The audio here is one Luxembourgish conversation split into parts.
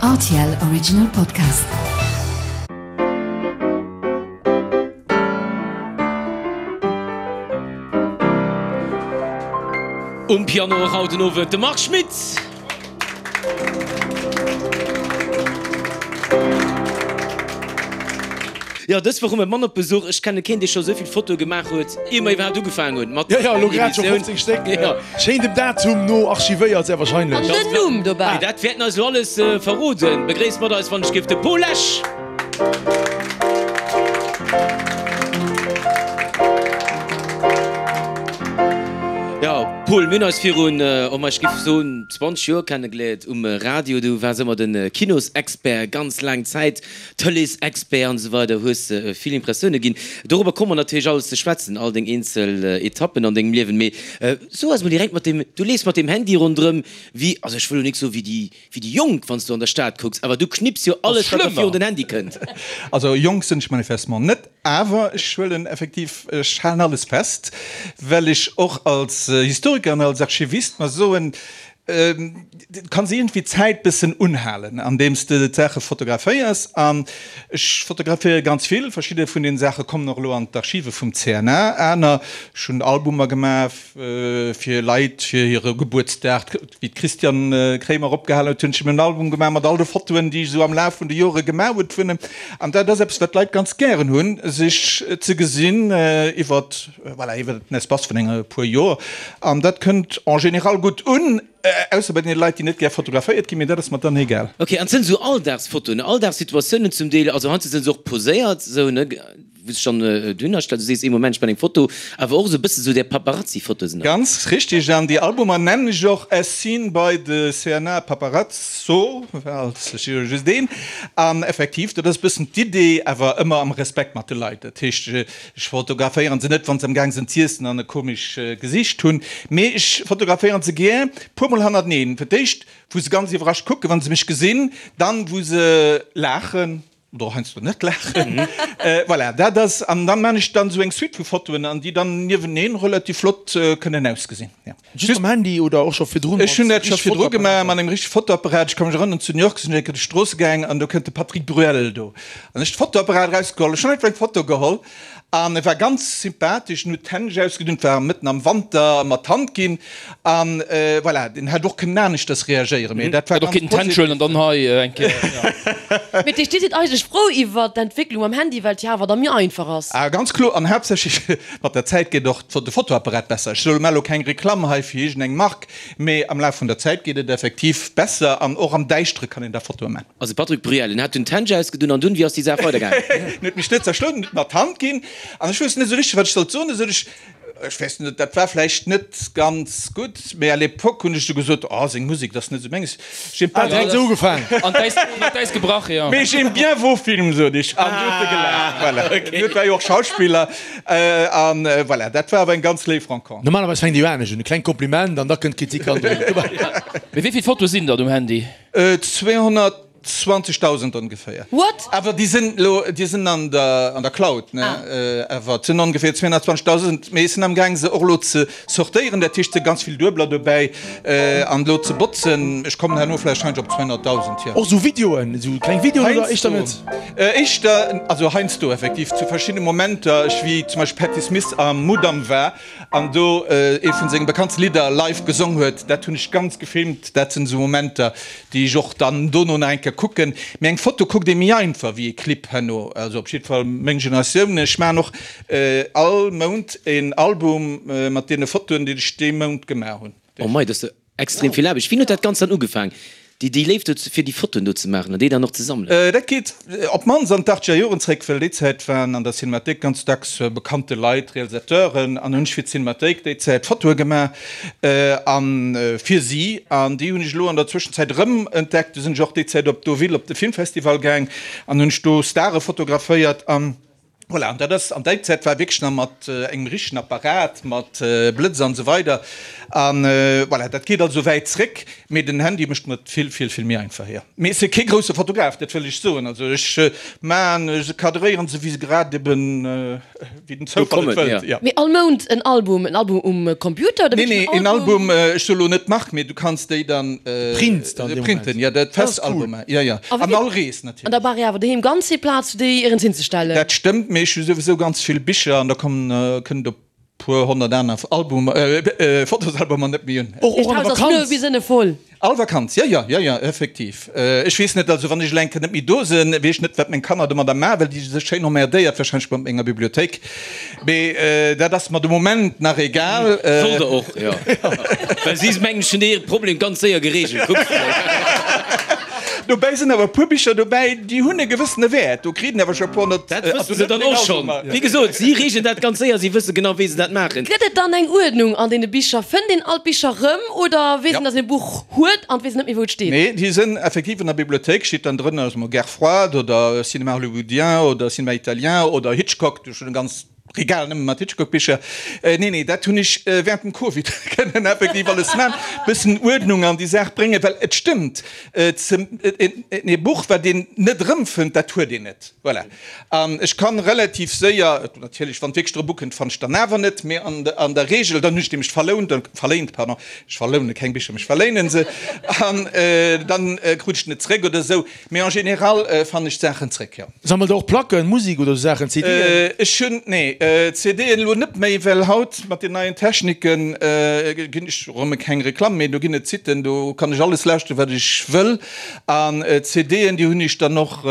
Rtl Original Podcast. Um Piano och haut den Owend de Marc Schmitz. Jo, dës Woch hu mer e Mann op Besuch. Ech kenne keen, dee scho esou vill Fotoe gemaach huet, ier mer iwwerhaapt ugefaangen hunn mat Jo, jo, elo grad scho 15 Stéck. Schéin dem Datum no archivéiert, sehr wahrscheinlech. An den Numm dobäi. Dat wäert en eis elo alles verroden. Begréisst mat eis, wann ech géif, de Paul Lesch. Jo, Paul, mir hunn eis virun, oh ma ech géif soen 20 Joer kennegeléiert um Radio. Du waars ëmmer de Kinosexpert, ganz laang Zäit, Tëleesexpert an esou weider, hues vill Impressioune ginn. Dorobber komme mer natierlech alles ze schwätzen, all deng eenzel Etappen an dengem Liewen. Mee so eis mol direkt mat deem, du leefs mat deem Handy ronderëm wéi, also ech wëll elo nik soen wéi déi Wéi déi Jonk, wann s du an der Stad kucks, awer du knipps jo alles, wat der virun den Handy kënnt. Also jonk sinn ech manifestement net, awer ech huelen effektiv, ech halen alles fest, well ech och als Historiker an als Archivist mer soen, du kanns iergendwéi d'Zäit bëssen unhalen, andeems de d'Saache fotograféiers. An ech fotograféiere ganz vill, verschidde vun deene Saache kommen och elo an d'Archive vum CNA, aner, ech hunn Albumer gemaach fir Leit fir hire Gebuertsdag, Wéi d'Christiane Kremer opgehalen huet, hunn ech him en Album gemaach mat all de Fotoen, déi ech esou am Laf vun de Jore gemaach huet vun him. An dat ass eppes, wat d'Leit ganz gären hunn, sech ze gesinn iwwer, voilà, iwwer den Espace vun enge puer Joer. An dat kënnt en général gutt un, ausser bei deene Leit, déi net gär fotograféiert ginn, mee dat ass mer dann egal. Ok, an et sënn esou Alldagsfotoen, Alldagssituatiounen zum Deel, also heiansdo sënn se och poséiert, esou, ne? Wou sech dann dohinner stellt, du sees ee Moment, ech man eng Foto, awer och esou e bësse sou där Paparazzi-Foto sinn. Ganz richtig, an déi Albumer nennen ech och As seen by the CNA Paparazzo, well ech si jo just een. An effektiv, dat ass e bëssen d'Idee, awer ëmmer am Respekt mat de Leit. Dat heescht, ech fotograféieren se net, wa se am Gaang sinn z'iessen an e komisch Gesicht hunn, mee ech fotograféieren se gär puermol hannerteneen. Fir d'éischt, wou se ganz iwwerrascht kucken, wa se mech gesinn, dann, wou se laachen. Oder och heiansdo net laachen. Voilà, dat ass, an dann maan ech dann esou eng Suite vu Fotoen, an déi dann nieweneen relativ flott kënnen ausgesinn, jo. Just mam Handy oder och scho virdrun mat Ech hunn dat scho virdru gemaach mat engem richtege Fotoapparat. Ech ka mech erënneren, zu New York sinn ech eng Kéier duerch d'Stroosse gaang an do kënnt de Patrick Bruel do an ech d'Fotoapparat erausgeholl. Ech hunn einfach eng Foto geholl An e war ganz sympathesch, en huet d'Hänn ausgedunn, et war mëtten am Wanter, mer d'Hand ginn an voilà, en hätt och kënnen aneschters reagéieren, mee dat war ganz positiv. An dann hei eng Kéier, ja. Mee dat heescht, Dir sidd eigentlech frou iwwer d'Entwécklung mam Handy, well et jo awer da méi einfach ass? Ah, ganz kloer, an haaptsächlech mat der Zäit gétt och de Fotoapparat besser. Ech soll elo keng Reklamm hei fir iergendeng Mark, mee am Laf vun der Zäit geet et effektiv besser an och am Däischtere kann een da Fotoe man. Also Patrick Bruel, en hat dunn d'Hänsch ausgedunn an dunn, wéi ass déi Saach weidergaangen? En huet mech net zerschloen, en huet mer d'Hand ginn an ech wousst net esou richteg, wat ech sollt soen. Du sot ech, ech weess net, dat war vläicht net ganz gutt, mee à l'époque hunn ech du gesot, oh, seng Musek, dat ass net esou menges. J'aime pas. Direkt esou ugefaangen. An d'Äis gebrach, jo. Mee j'aime bien vos films, sot ech, an du huet e gelaacht. Voilà, en huet war jo och Schauspiller an voilà, dat war awer eng ganz léif Rencontre. Normalerweis fänkt ee jo anescht un, e klengt Kompliment an da kënnt d'Kritik hannendrun. Mee wéi vill Fotoe sinn dat um Handy? 220.000 ongeféier. What? Awer déi sinn elo, déi sinn an der, an der Cloud, ne? Awer et sinn ongeféier 220.000, mee ech sinn amgaang se och elo ze sortéieren, dat heescht, et si ganz vill Duebeler dobäi, an elo ze botzen. Ech kommen herno vläicht heiansdo op 200.000, jo. Och esou Videoen, esou kleng Videoen oder éischter net? Éischter, also heiansdo effektiv, zu verschiddene Momenter, ech wéi zum Beispill Patti Smith am Mudam war, An do ee vun senge bekanntste Lidder live gesong huet, dat hunn ech ganz gefilmt. Dat sinn esou Momenter, déi ech och dann dono nach eng Kéier kucken. Mee eng Foto kuckt ee méi einfach wéi ee Clip herno, also op jiddwer Fall meng Generatioun. Ech maachen och all Mount een Album mat deene Fotoen, déi ech dee Mount gemaach hunn. Oh mei, dat ass jo Extrem vill Aarbecht. Wien huet dat Ganzt dann ugefaang, déi déi Léift do fir déi Fotoen do ze maachen an déi dann och ze sammelen? Dat geet op d'mannst an d'achtzeger Joren zréck, well déi Zäit waren an der Cinemathéik ganz dacks bekannte Leit, Realisateuren, an hunn ech fir d'Cinemathéik déi Zäit Fotoe gemaach a fir si. An déi hunn ech elo an der Zwëschenzäit erëm entdeckt. Du sinn ech och déi Zäit op Deauville op de Filmfestival gaang an hunn ech do Stare fotograféiert. An. Voilà, an dat ass, an déi Zäit war wierklech nach mat engem richtegen Apparat, mat Blëtz an esou weider. An voilà, dat geet also wäit zréck, mee den Handy mécht mer et vill, vill, vill méi einfach, jo. Mee ech si kee grousse Fotograf, dat wëll ech soen. Also ech maachen, ech kadréieren se, wéi se grad eben, wéi den Zoufall et wëllt, jo. Mee all Mount en Album, en Album um Computer oder Nee, nee, wierklech en Album, ech soe lo net d'Mark, mee du kanns déi dann Print dann dee Moment. printen, jo, dat fest Albumer, jo, jo. An all Rees natierlech. An da brauch ee awer doheem ganz vill Plaz fir déi iergends hinzestellen. Dat stëmmt, mee ech hu souwisou ganz vill Bicher an da kommen, kënnen do puer 100 aner Albumer, Fotosalbumer net méi un. Och och an der D'Haus ass lues Vakanz? bis ënne voll. All Vakanz, jo, jo, jo, jo, effektiv. Ech weess net, also wann ech eleng net méi do sinn, weess ech net, wat meng Kanner domadder maachen, well déi sech schéin emmerdéiert warscheinlech mat menger Bibliothéik. Mee dat ass mer de Moment nach egal. Soll der och, jo. Well si mengen, ech hunn dee Problem ganz séier gereegelt. Kucks de mol. Dobäi sinn awer e puer Bicher dobäi, déi hunn e gewëssene Wäert. Do kritt een awer scho e puer 100. Dat wësse se dann och schonn. Wéi gesot, si reegelen dat ganz séier, si wësse genau, wéi se dat maachen. Gëtt et dann eng Uerdnung an deene Bicher? Fënnt een all d'Bicher rëm oder weess een, datt een e Buch huet an weess net méi, wou et steet? Nee, déi sinn effektiv an der Bibliothéik, steet dann drënner, soe mer Guerre froide oder Cinéma hollywoodien oder Cinéma italien oder Hitchcock, do steet e ganz Regal nëmme mat Hitchcock-Bicher. Nee, nee, dat hunn ech während dem Covid kënnen effektiv alles man, bëssen Uerdnung an déi Saach bréngen, well et stëmmt, e Buch, wat een net erëmfënnt, dat huet een net. Voilà. An ech kann relativ séier, natierlech, wann et wierklech drop ukënnt, fannen ech dann awer net, mee an der Regel, dann hunn ech nämlech verlount, verléint, pardon, ech verloune keng Bicher, mee ech verléinen se, an dann krut ech net zréck oder esou. Mee en général fannen ech d'Saachen zréck, jo. Sammelt der och Placken, Musik oder sou Saachen, CDen? Ech hunn, nee, CDen elo net méi, well haut mat den neien Techniken ginn ech, erëm keng Reklamm, mee do ginn et Siten, do kann ech alles lauschteren, wat ech wëll. An CDen, déi hunn ech dann och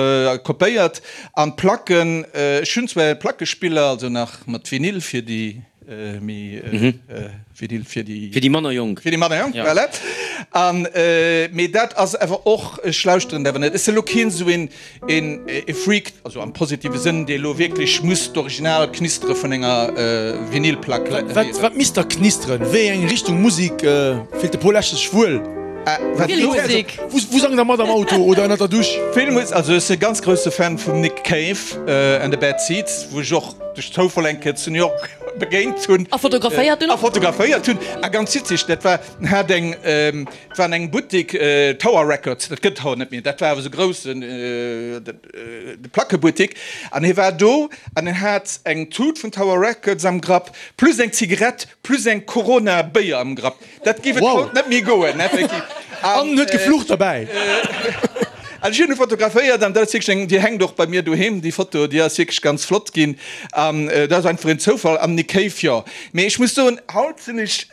kopéiert. An d'Placken, ech hunn zwar e Plackespiller, also nach mat Vinyl fir déi méi Vinyl fir déi. Fir déi manner Jonk. Fir déi manner Jonk, voilà. An, mee dat ass awer och, ech lauschteren awer net. Ech sinn elo keen esou een, een e Freak, also am positive Sënn, dee elo wierklech muss d'original Knistere vun enger Vinylplack héieren. Wat, wat misst da knisteren? Wéi eng Richtung Musik fillt de Paul Esch sech wuel? Wat Vill Musik. Wou, wou sangt der mat am Auto oder ënnert der Dusch? Vill Musik, also ech si ganz grousse Fan vum Nick Cave and the Bad Seeds, wou ech och duerch Zoufall eng Kéier zu New York begéint hunn. A fotograféiert hunn. A fotograféiert hunn. A ganz witzeg, dat war, en hat eng, et war an engem Buttik, Tower Records, dat gëtt et haut net méi, dat war awer esou groussen, de Plackebuttik. An hie war do an en hat eng Tut vun Tower Records am Grapp, plus eng Zigarett, plus eng Corona Béier am Grapp. Dat géif et haut net méi goen, effektiv. An en huet geflucht derbäi. An ech hunn e fotograféiert an dat ass wierklech eng, déi hänkt och bei mir doheem, déi Foto, déi ass wierklech ganz flott ginn. An dat ass einfach en Zoufall. An Nick Cave, jo. Mee ech muss soen, haut sinn ech,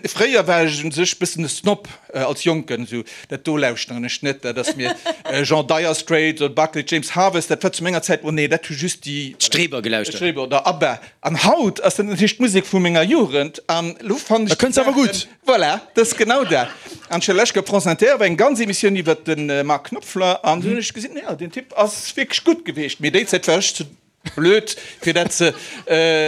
fréier war ech u sech bëssen e Snob als Jonken, esou dat do lauschteren ech net, dat ass mir Jean Dire Straits oder Barclay James Harvest, dat war zu menger Zäit, oh nee, dat hu just déi Streber gelauschtert. Streber oder ABBA. An haut ass dat natierlech d'Musek vu menger Jugend an elo fannen ech Da kënnt se awer gutt. Voilà, dat ass genau dat. An ech lech op France Inter war eng ganz Emissioun iwwert de Mark Knopfler an du hunn ech gesinn, jo, deen Typ ass wierklech gutt gewiescht. Mee déi Zäit war ech ze blöd fir dat ze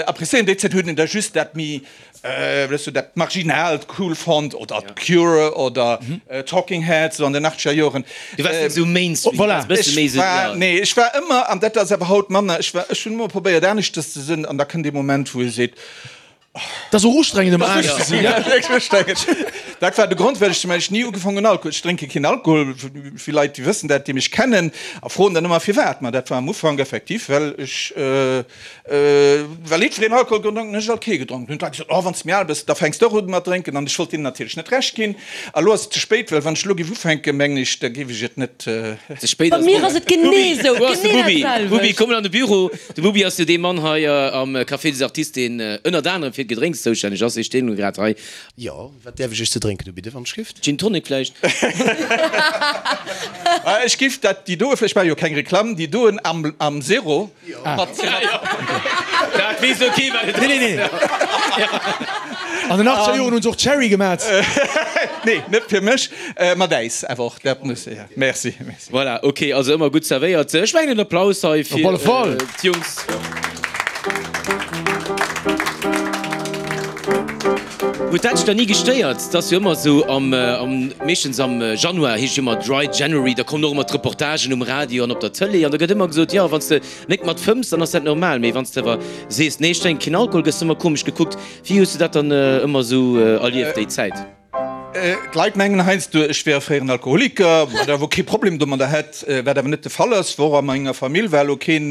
appréciéieren. Déi Zäit huet een da just dat méi, wéi soll dat marginaalt cool fonnt oder d'Cure oder Talking Heads esou an den achtzeger Joren. Du waars net esou Mainstream, du waars e bësse méi esou, ja. Nee, ech war ëmmer, an dat ass awer haut manner, ech war, ech hunn ëmmer probéiert aneschters ze sinn an da kënnt dee Moment wou ee seet, Dat ass och ustrengend ëmmer anescht ze sinn, ja. Ustrengend. Dat war de Grond well ech zum Beispill ni ugefaangen hunn Alkohol, ech drénke keen Alkohol, vill Leit déi wëssen dat, déi mech kennen a froen dann ëmmer firwat, ma dat war am Ufank effektiv well ech, Well jiddwereen Alkohol gedronk hunn, hunn ech alt kee gedronk. Hunn d'Leit gesot, Oh, wann s de méi al bass, da fänks de och un mat drénken. An ech wollt deenen natierlech net Recht ginn. A lo ass et ze spéit, well wann ech elo géif ufänken, mengen ech, da géif ech et net. Ze spéit Bei ass mir ass et genee esou, Wou ass de genee Bubi? dat Bubi, selwecht. komm mol an de Büro. De Bubi ass jo dee Mann hei am Café des Artistes, deen ënnert anerem fir d'Gedrénks zoustänneg ass. Ech stinn elo grad hei. Jo, wat däerf ech iech ze drénken ubidden, wann ech gift? Gin Tonic vläicht? Ech giff dat, déi doen, ech maache jo keng Reklamm, déi doen am Zéro. Dat weess ok wat et Nee, nee, nee. An den 80er Joren hunn se och Cherry gemat. Nee, net fir mech. Mat Äis awer och, dat muss, ja. Merci, merci. Voilà, ok, also ëmmer gutt zerwéiert. Ech mengen en Applaus hei fir Op alle Fall. d'Jungs. Huet dat dech dann ni gestéiert? Et ass jo ëmmer esou am, am, meeschtens am Januar heescht jo ëmmer Dry January, da kommen och ëmmer d'Reportagen um Radio an op der Tëlee an da gëtt ëmmer gesot, jo wann s de net mat fëmms, dann ass dat normal, mee wann s de awer sees, nee ech drénke keen Alkohol, gëss de ëmmer komesch gekuckt. Wéi hues de dat dann ëmmer esou erlieft déi Zäit? D'Leit mengen heiansdo, ech wär e fréieren Alkoholiker, wat awer kee Problem domadder hätt, wat awer net de Fall ass. Wor a menger Famill war elo keen.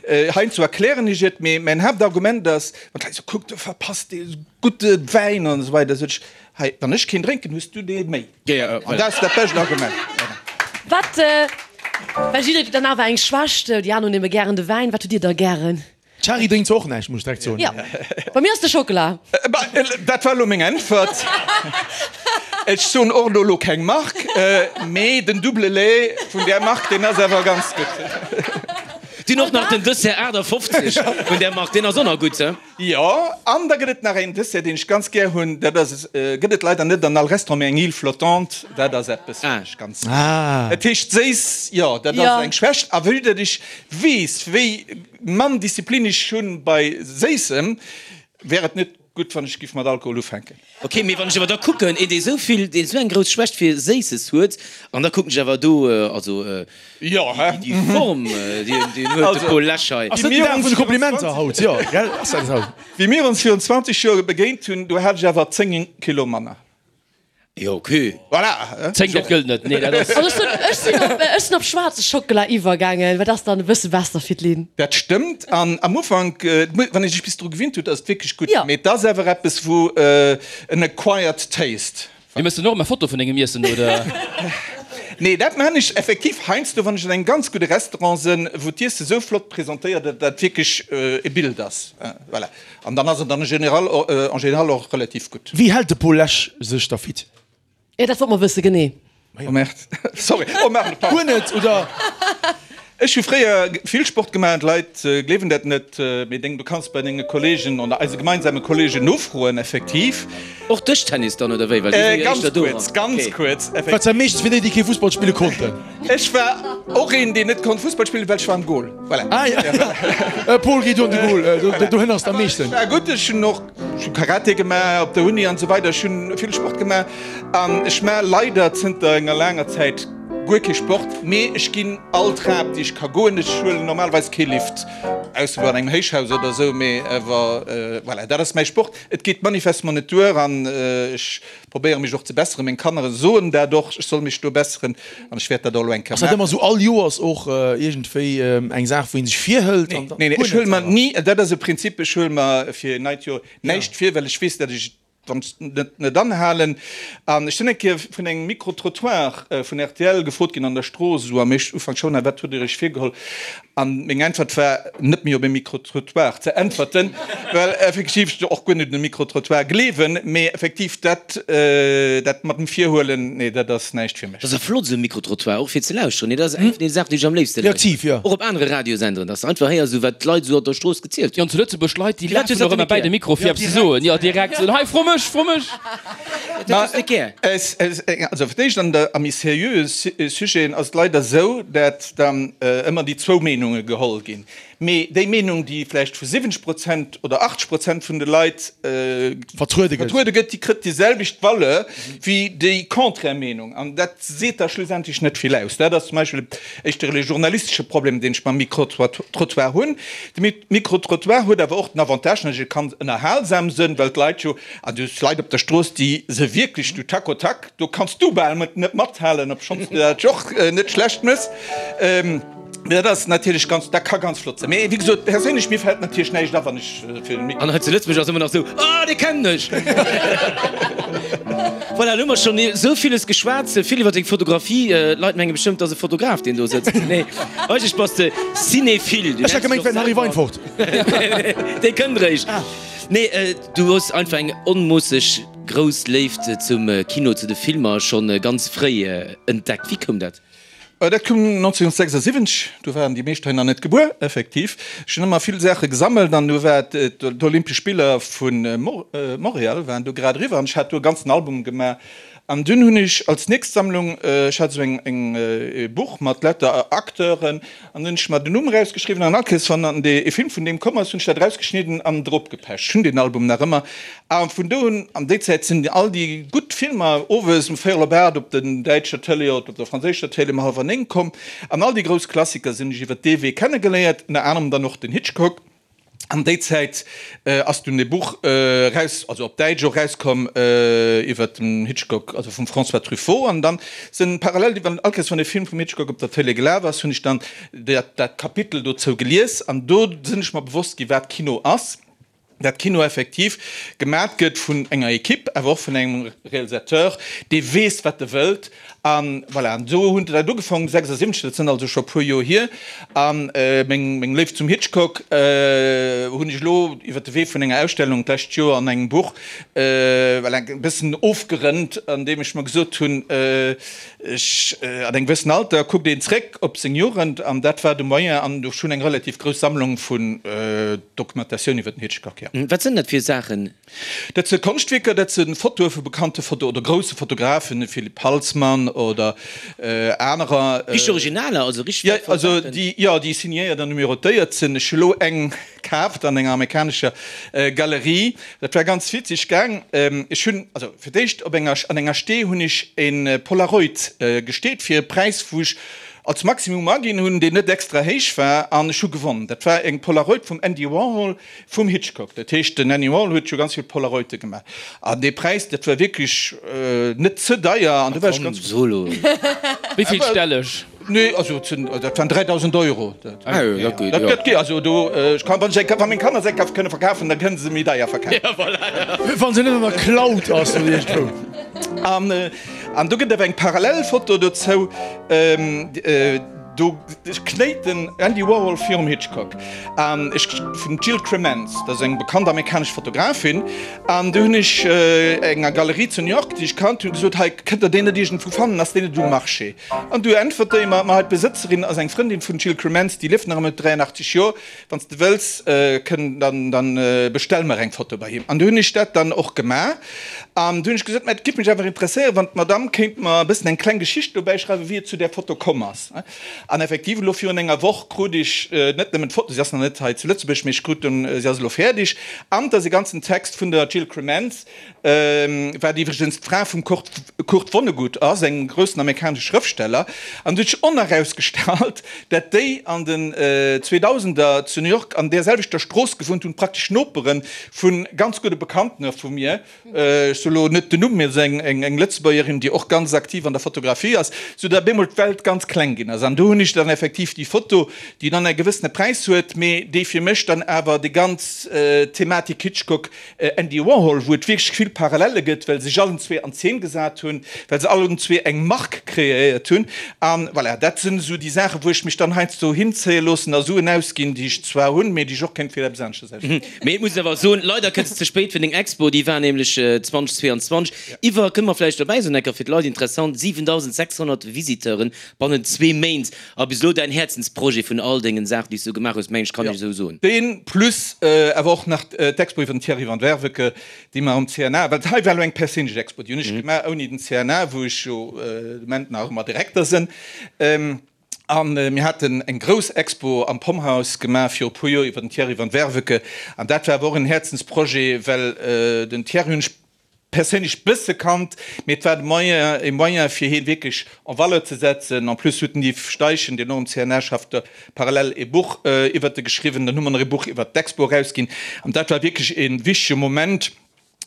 Heiansdo erklären ech et, mee mäin Haaptargument ass, wann d'Leit soen, kuck, du verpasst dee gudde Wäin an esou weider, sot ech, hei, wann ech keen drénken, hues du dee méi. An dat ass dat bescht Argument. Wat, well jiddereen huet dann awer eng Schwächt, déi aner hunn ebe gären de Wäin, wat hutt Dir da gären? D'Shari drénkt zwar och näischt, muss ech direkt soen. Jo, bei mir ass de Schockela. Dat war elo meng Äntwert. Ech soen och elo elo keng Mark, mee den Double Lait vun där Mark, deen ass awer ganz gutt. Dinn och nach den Dessert 58 vun där Mark, deen ass och nach gutt, he? Jo, an da gëtt et nach een Dessert, deen ech ganz gär hunn. Dat ass, gëtt et leider net an all Restaurant, mee eng Île flottante, dat ass eppes, wat ech ganz. Dat heescht séiss, jo, dat ass eng Schwächt. A vue datt ech weess, wéi Mann Disziplin ech hunn bei Séissem, wär et net gutt wann ech giff mat Alkohol ufänken. Ok, mee wann ech awer da kucken, een dee sou vill, deen sou eng grouss Schwächt fir Séisses huet, an da kucken ech awer do, also déi Form déi en huet, de Paul Lesch hei. Ass dat den Dag vun de Komplimenter haut? Jo, gell, ass dat esou? Wéi mir ons virun 20 Joer begéint hunn, do hat ech awer 10 Kilo manner. Jo, ok. Voilà! 10, dat gëllt net. Nee, dat ass. Also ech sinn, ech sinn op, ech sinn op schwaarze Schockela iwwergaangen, well dat ass dann e bësse besser fir d'Linn. Dat stëmmt. An am Ufank, wann ee sech bis dru gewinnt huet, ass et wierklech gutt. Jo. Mee et ass awer eppes, wou en acquired taste. Mee mëss de och ëmmer Foto vun dengem Iessen, oder? Nee, dat maan ech effektiv heiansdo, wann ech an engem ganz gudde Restaurant sënn, wou d'Iesse sou flott presentéiert, datt dat wierklech e Bild ass. Voilà. An dann ass et en général, en général och relativ gutt. Wéi hält de Paul Lesch sech da fit? Jo, dat wollt mer wëssen, genee. Oh merde, sorry, oh merde, pardon. Guer net, oder? Ech hu fréier vill Sport gemaach an d'Leit gleewen dat net, mee deng, du kanns bei denge Kollegen oder eise gemeinsame Kollegen nofroen, effektiv. Och Dëschtennis dann, oder wéi? Well déi si jo Ganz éischter do. kuerz, ganz kuerz, Wat effektiv. war meeschtens fir déi, déi kee Fussball spille konnten. Ech war och een, deen net konnt Fussball spillen, well ech war am Goal. Voilà. Ah ja, Paul geet do an de Goal, dohinner ass et am meeschten. War gutt, ech hunn och ech hu Karate gemaach op der Uni an esou weider, ech hunn vill Sport gemaach an ech maache leider zënter enger laanger Zäit guer kee Sport, mee ech ginn all Trap déi ech ka goen. Ech huelen normalerweis kee Lift, ausser elo an engem Héichhaus oder esou, mee awer voilà, dat ass mäi Sport. Et geet manifestement net duer an ech Probéiere mech och ze besseren. Meng Kanner soen dat och, ech soll mech do besseren an ech wäert dat och elo eng Kéier Ass dat maachen. ëmmer esou all Joers och iergendwéi eng Saach, wou ee sech virhëlt an dann Nee, nee, guer ech huele net mer awer? ni, dat ass e Prinzip, ech huele mer fir en neit Joer näischt vir, well ech weess, datt ech et wann ech net net anhalen. An ech sinn eng Kéier vun engem Micro-trottoir vun rtl gefrot ginn an der Strooss, esou am éischten Ufank schonn, wat hutt Dir Iech virgeholl? An meng Äntwert war, net méi op e Micro-trottoir ze äntwerten, well effektiv ech och guer net un e Micro-trottoir gleewen. Mee effektiv dat, dat mat dem Virhuelen, nee, dat ass näischt fir mech. Dat ass flott, esou e Micro-trottoir, och fir ze lauschteren. Nee, dat ass eng vun deene Saachen, déi ech am léifste lauschteren. Och op anere Radiosenderen, dass de einfach héiers, esou wat d'Leit esou op der Strooss gezielt Jo, hunn. an zu Lëtzebuerg, d'Leit, déi Firwat hues lafen dat och denn ëmmer net bäi de gär? Mikro, fir eppes ze soen. Jo, direkt soen, Hei, fro mech, fro mech! Dat hues de net gär? Also fir d'éischt an der, a méi seriöe Sujeten ass et leider esou, dat dann ëmmer déi zwou Meenunge geholl ginn. Mee déi Meenung, déi vläicht vu 70 Prozent oder 80 Prozent vun de Leit vertruede gëtt, déi kritt déi selwecht Valeur wéi déi contraire Meenung. An dat seet da schlussendlech net vill aus. Dat ass zum Beispill éischter e journalistesche Problem, deen ech mam Micro-trottoir hunn. De Micro-trottoir huet awer och den Avantage, natierlech, e kann ënnerhalsam sënn, well d'Leit jo, an du hues Leit op der Strooss, déi se wierklech du tac au tac, do kanns du bal net mathalen, obschonns du dat jo och net schlecht mëss. Dat ass natierlech ganz, dat ka ganz flott sinn. Mee wéi gesot, perséinlech, mir fält natierlech näischt a wann ech fir den Mikro. An hei zu Lëtzebuerg ass ëmmer nach esou, Ah, dee kennen ech! Voilà, elo hu mer schonn esou villes geschwat, vill iwwer deng Fotografie. D'Leit menge bestëmmt, et ass e Fotograf, deen do sëtzt. Nee, eigentlech bass de Cinéphile. Ech hat gemengt, et wär den Harry Wijnvoord. Dee kënnt eréischt. Nee, du hues einfach eng onmoosseg grouss Léift zum Kino, zu de Filmer schonn ganz fréi entdeckt. Wéi koum dat? Dat koum 1976, do waren déi meescht hei nach net gebuer, effektiv. Ech hunn ëmmer vill Saache gesammelt an du war d'Olympesch Spiller vu Montréal waren do grad eriwwer an ech hat do e ganzen Album gemaach. An dunn hunn ech als nächst Sammlung, ech hat esou eng e Buch mat lauter Acteuren an hunn ech mer den Numm erausgeschriwwen an all Kéiers wann dann dee e Film vun deem komm ass, hunn ech dat erausgeschnidden an drop gepecht. Ech hunn deen Album nach ëmmer. A vun do un, an déi Zäit sinn all déi gutt Filmer owes um véierel op 8 op den däitscher Tëlee oder op der franséischer Tëlee um hallwer 9 komm. An all déi grouss Klassiker sinn ech iwwer dee Wee kennegeléiert, ënner anerem dann och den Hitchcock. An déi Zäit ass dunn e Buch eraus, also op Däitsch och erauskomm, iwwer den Hitchcock, also vum François Truffaut. An dann sinn parallel, wann all Kéiers wann e Film vum Hitchcock op der Tëlee gelaf ass, hunn ech dann dat dat Kapitel dozou gelies. An do sinn ech mer bewosst gi wat Kino ass. Dat Kino effektiv gemat gëtt vun enger Equipe, awer och vun engem Realisateur, dee weess wat e wëllt. An voilà, an esou hunn dat ugefaangen, 76, dat sënn also scho puer Joer hier. A meng meng Léift zum Hitchcock hunn ech elo iwwer de Wee vun enger Ausstellung d'lescht Joer an engem Buch voilà e bëssen ofgerënnt, andeem ech mer gesot hunn, ech, an engem gewëssen Alter kuckt een zréck op seng Jugend an dat war de Moyen. An ech hunn eng relativ grouss Sammlung vun Dokumentatioun iwwer den Hitchcock, jo. Wat sënn dat fir Saachen? Dat si Konschtwierker, dat si Fotoe vu bekannte Foto oder grousse Fotografen, de Philippe Halsman oder anerer. Richteg Originaler, also richteg wäertvoll Saachen? Also déi, jo, déi signéiert an numerotéiert sinn. Ech hu lo eng kaaft an enger amerikanescher Galerie. Dat war ganz witzeg gaang. Ech hunn, also fir d'éischt op enger, an enger Stee hunn ech e Polaroid gesteet fir e Präis, wou ech als Maximum aginn hunn, deen net extra héich war, an ech hu gewonnen. Dat war eng Polaroid vum Andy Warhol vum Hitchcock. Dat heescht, den Andy Warhol huet jo ganz vill Polaroide gemaach. An dee Präis, dat war wierklech net ze deier. An do war ech ganz. Komm, so elo. Wéi vill stelleg? Nee, also dat waren 3.000 Euro. Ah jo, dat geet, jo. Dat geet, also do, ech kann, wann ech eng, wa meng Kanner se eng Kéier kënne verkafen, da kënne se méi deier verkafen. Ja, voilà, ja. Wa se net an der Cloud ass oder iergendwou. An, an do gëtt awer eng Parallelfoto dozou. Do knéit den Andy Warhol virum Hitchcock. An ech vum Jill Krementz, dat ass eng bekannt amerikanesch Fotografin. An du hunn ech enger Galerie zu New York, déi ech kannt hunn, gesot, hei kënnt der deen net iergendwou fannen, ass deen net um Marché? An du äntwert déi mer, ma hei d'Besëtzerin ass eng Frëndin vun Jill Krementz, déi lieft nach ëmmer, huet 83 Joer, Wann s de wëlls, kënn, dann, dann bestell mer eng Foto bei him. An du hunn ech dat dann och gemaach. An du hunn ech gesot, mä et giff mech einfach interesséieren, wann d'Madame kéint mer e bëssen eng kleng Geschicht dobäi schreiwen, wéi et zu där Foto komm ass. An effektiv, elo virun enger Woch krut ech net nëmmen d'Foto, si ass nach net hei zu Lëtzebuerg, mee ech krut dunn, si ass elo fäerdeg, an et ass e ganzen Text vun der Jill Krementz, wat iwwregens d'Fra vum Kurt Vonnegut ass, engem groussen amerikanesche Schrëftsteller, an et huet sech och nach erausgestallt, dat déi an den Zweedausender zu New York an där selwechter Strooss gewunnt hunn, praktesch Nopere vu ganz gudde Bekannten vu mir, ech soe lo net den Numm, mee et ass eng Lëtzebuergerin, déi och ganz aktiv an der Fotografie ass, sou datt op eemol d'Welt ganz kleng ginn ass. An do hunn ech dann effektiv déi Foto, déi dann e gewëssene Präis huet, mee déi fir mech dann awer déi ganz Thematik Hitchcock Andy Warhol, wou et wierklech vill Parallele gëtt, well se sech allen zwee an Zeen gesat hunn, well se allen zwee eng Mark kreéiert hunn. A voilà, dat sinn esou déi Saachen, wou ech mech dann heiansdo hinzéie loossen a Suen ausginn, déi ech zwar hunn, mee déi ech och kéint fir eppes aneschters ausginn. Mee et muss een awer soen, leider kënns de ze spéit fir deng Expo, déi war nämlech 2022. Iwwer, kënne mer vläicht dobäi soen, enker fir d'Leit interessant, 7.600 Visiteuren bannent zwee Méint. A bis elo däin Häerzensprojet vun all dengen Saachen, déi s du gemaach hues, mengen ech, kann ech esou soen. Deen plus awer och nach d'Expo iwwer den Thierry van Werveke, déi mer am CNA, well hei war elo eng perséinlech Expo, déi hunn ech gemaach ouni den CNA, wou ech jo de Moment nach ëmmer Direkter sinn. A mir haten eng grouss Expo am Pomhouse gemaach viru puer Joer iwwer den Thierry van Werveke. An dat war awer och en Häerzensprojet, well den Thierry hunn ech perséinlech bësse kannt, mee et war de Moyen, e Moyen fir hien wierklech en valeur ze setzen. En plus huet den Yves Steichen, deen och um CNA schafft, parallel e Buch iwwert e geschriwwen. Dann hu mer nach e Buch iwwert d'Expo erausginn. An dat war wierklech e wichtege Moment,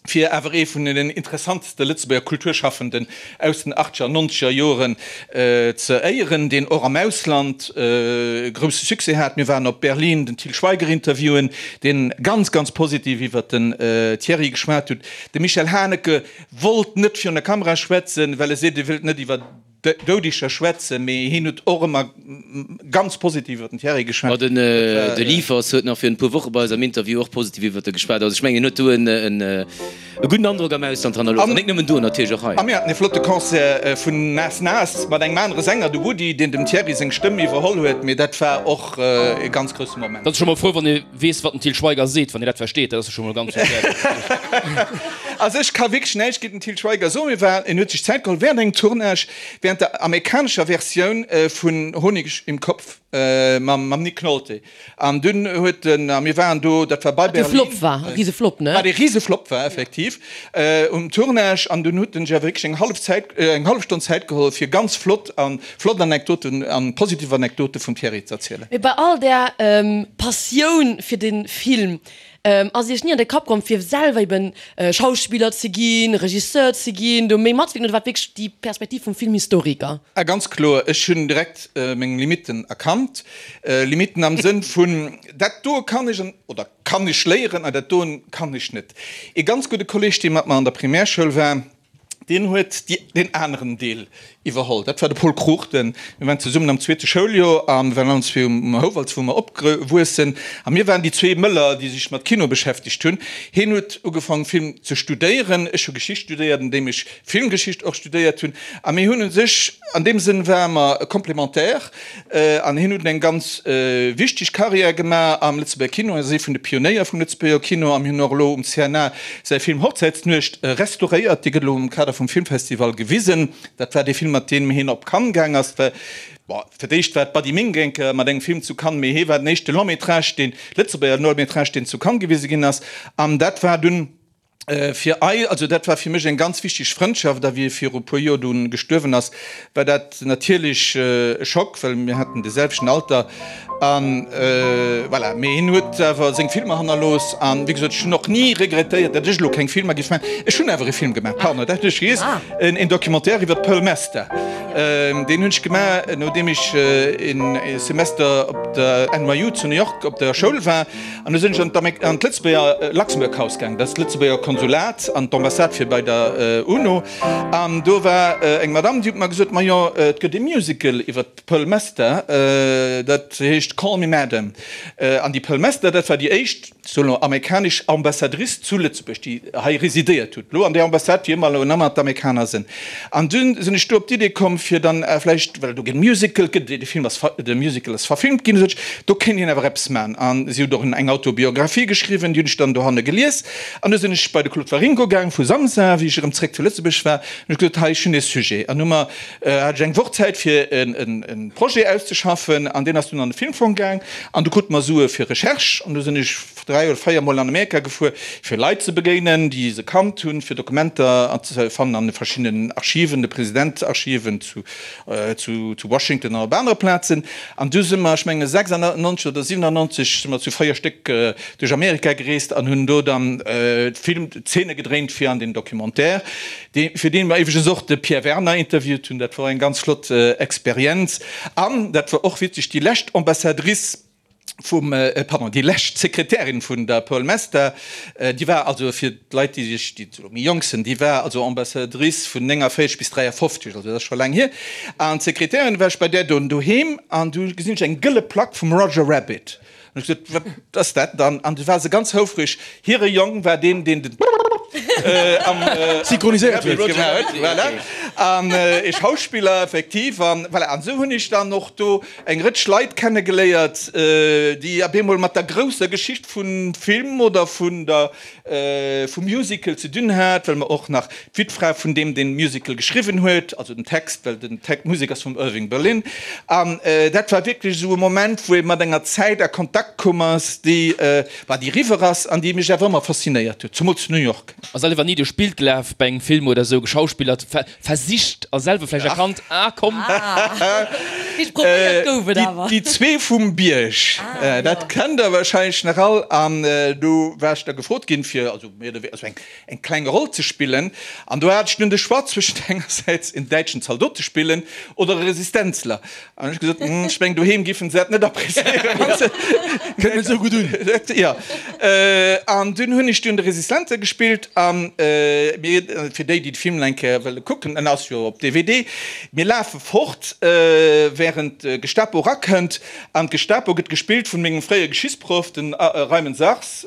fir awer ee vun den interessanteste Lëtzebuerger Kulturschaffenden aus den achtzeger an nonzeger Joren ze éieren, deen och am Ausland e grousse Succès hat. Mir waren op Berlin den Til Schweiger interviewen, deen ganz, ganz positiv iwwert den Thierry geschwat huet. De Michel Haneke wollt net virun der Kamera schwätzen, well e seet, e wëllt net iwwer Doudeger schwätzen, mee hien huet och ëmmer ganz positiv iwwer den Thierry geschwat. Ma den De Liefers huet nach virun e puer Woche bei eis am Interview och positiv iwwer e geschwat. Also ech mengen, hien huet do en. E gudden Androck am Ausland hannerlooss. An net nëmmen do, natierlech och hei. A mir haten e flotte Concert vun Naass Naass mat engem anere Sänger, de Woody, deen dem Thierry seng Stëmm iwwerholl huet. Mee dat war och e ganz grousse Moment. Dat ass scho mol frou, wann ee weess, wat den Til Schweiger seet, wann ee dat versteet. Dat ass jo scho mol ganz verkéiert. Also ech ka wierklech näischt géint den Til Schweiger soen. Mir war, en huet sech Zäit geholl während engem Tournage, während der amerikanescher Versioun vun Honig im Kopf mam Nick Nolte. An dunn huet en, a mir waren do, dat war bei Berlin. Wat e Flop war, e Riseflop, ne? Wat e Riseflop war, effektiv, um Tournage. An dunn huet en sech awer wierklech eng hallef Zäit, eng hallef Stonn Zäit geholl, fir ganz flott a flott Anekdoten a positiv Anekdote vum Thierry ze erzielen. Mee bei all där Passioun fir de Film, ass Iech ni an de Kapp komm, fir selwer eben Schauspiller ze ginn, Regisseur ze ginn, do méi matzewierken, oder war et wierklech déi Perspektiv vum Filmhistoriker? A ganz kloer, ech hunn direkt meng Limitten erkannt. Limitten am Sënn vun, dat doe kann ech an, oder kann ech léieren an dat doen kann ech net. Ee ganz gudde Kolleg, dee mat mer an der Primärschoul war, deen huet déi, deen aneren Deel iwwerholl. Dat war de Pol Cruchten. Mir waren zesummen am zweete Schouljoer a mir waren allen zwee um Houwald, wou mer opgewuessen. A mir waren déi zwee Mëller, déi sech mat Kino beschäftegt hunn. Hien huet ugefaangen, Film ze studéieren. Ech hu Geschicht studéiert, andeem ech Filmgeschicht och studéiert hunn. A mir hunn u sech, an deem Sënn ware mer complémentaire. An hien huet eng ganz wichteg Karriär gemaach am Lëtzebuerger Kino. Hien ass ee vun de Pionéier vum Lëtzebuerger Kino. A mir hunn och elo um CNA säi Film Hochzäitsnuecht restauréiert. Dee gëtt elo am Kader vum Filmfestival gewisen. Dat war dee Film, mat deem hien op Cannes gaang ass. Bon, fir d'éischt war d'Bady Mingenke mat engem Film zu Cannes, mee hie war den éischte Long-métrage, deen, Lëtzebuerger Long-métrage, deen zu Cannes gewise ginn ass. An dat war dunn Fir ei, also dat war fir mech eng ganz wichteg Frëndschaft, a wéi e viru puer Joer du gestuerwen ass, war dat natierlech e Schock, well mir haten de selwechten Alter an voilà. Mee hien huet awer seng Filmer hannerlooss an wéi gesot, ech hunn och ni regrettéiert, datt ech elo keng Filmer géif maachen. Ech hunn awer e Film gemaach, pardon, dat hunn ech vergiess, en Documentaire iwwer d'Pearl Mesta. Deen hunn ech gemaach, nodeem ech een Semester op der NYU zu New York op der Schoul war. An du sinn ech an d'Lëtzebuerger Luxembourg House gaang, dat ass d'Lëtzebuerger Konsulat an d'Ambassade fir bei der UNO. An do war eng Madame, déi huet mer gesot, Majo, et gëtt e Musical iwwer d'Pearl Mesta, dat heescht Call Me Madam. An déi Pearl Mesta, dat war déi éischt, ech soen elo, amerikanesch Ambassadrice zu Lëtzebuerg, déi hei residéiert huet, elo an där Ambassade, wéi ëmmer elo ëmmer d'Amerikaner sinn. An dunn sinn ech do op d'Idee komm, fir dann vläicht, well do gëtt e Musical, gëtt, de Film ass, de Musical ass verfilmt ginn, esou, do kéint een awer eppes maachen. An si huet och eng Autobiographie geschriwwen, déi hunn ech dann dohanne gelies. An du sinn ech bei de Claude Waringo gaang vu Samsa, wéi ech erëm zréck zu Lëtzebuerg war, hunn ech gesot, hei, ech hunn ee Sujet. An hu mer, hat ech eng Woch Zäit, fir e Projet auszeschaffen, an deen ass dunn an de Filmfong gaang. An du krute mer Sue fir Recherche, an du sinn ech, 3 oder 4 Mol an Amerika gefuer, fir Leit ze begéinen, déi se kannt hunn, fir Dokumenter ze fannen an de verschiddenen Archiven, de Presidentarchiven zu, zu Washington an op anere Plazen. An du si mer, ech menge 96 oder 97, si mer zu 4 Stéck duerch Amerika gereest an hunn do dann Film, Zeene gedréint fir an den Documentaire, dee, fir dee mer iwwregens och de Pierre Werner interviewt hunn. Dat wor eng ganz flott Experienz. An dat wor och witzeg, déi lescht Ambassadrice, vum, pardon, déi lescht Sekretärin vun der Pearl Mesta, déi war also, fir d'Leit, déi sech, déi elo méi jonk sinn, déi war also Ambassadrice vun 49 bis 53, also dat ass scho laang hier. An d'Sekretärin, war ech bei där do doheem an du gesinn ech eng gëlle Plack vum Roger Rabbit. An ech gesot, wat ass dat dann? An du war se ganz houfreg, hire Jong war deen, deen den am Synchroniséiert huet. Gemaach huet, voilà. An ee Schauspiller effektiv. An voilà, an esou hunn ech dann och do eng Rëtsch Leit kennegeléiert, déi op eemol mat der grousser Geschicht vum Film oder vun der, vum Musical ze dunn hat, well mer och nach d'Wittfra vun deem, deen Musical geschriwwen huet, also den Text, well den Text, d'Musek ass vum Irving Berlin. An dat war wierklech esou e Moment, wou ee mat enger Zäit a Kontakt komm ass, déi, bah, déi eriwwer ass an déi mech awer ëmmer faszinéiert huet, zemools zu New York. Ass selwer ni duerch d'Bild gelaf bei engem Film oder esou, geschauspillert, Versicht a selwer vläicht erkannt, ah komm. Richteg probéiert gouf et awer. Déi zwee vum Bierg, dat kennt der wahrscheinlech nach all. An do war ech da gefrot ginn, fir also méi oder wéi also eng eng kleng Roll ze spillen. An do hat ech dunn de Choix zwëschent engersäits en däitschen Zaldot ze spillen oder e Resistenzler. An ech gesot, hm, ech meng doheem giffen se dat net appréciéieren. Kënnt net esou gutt un. Jo. An dunn hunn ech dunn de Resistenzler gespillt. An mir, fir déi, déi de Film eng Kéier wëlle kucken, en. ass jo op DVD. Mir lafe fort, wärend d'Gestapo erakënnt. An d'Gestapo gëtt gespillt vun mengem fréiere Geschichtsproff, dem Raymond Sachs,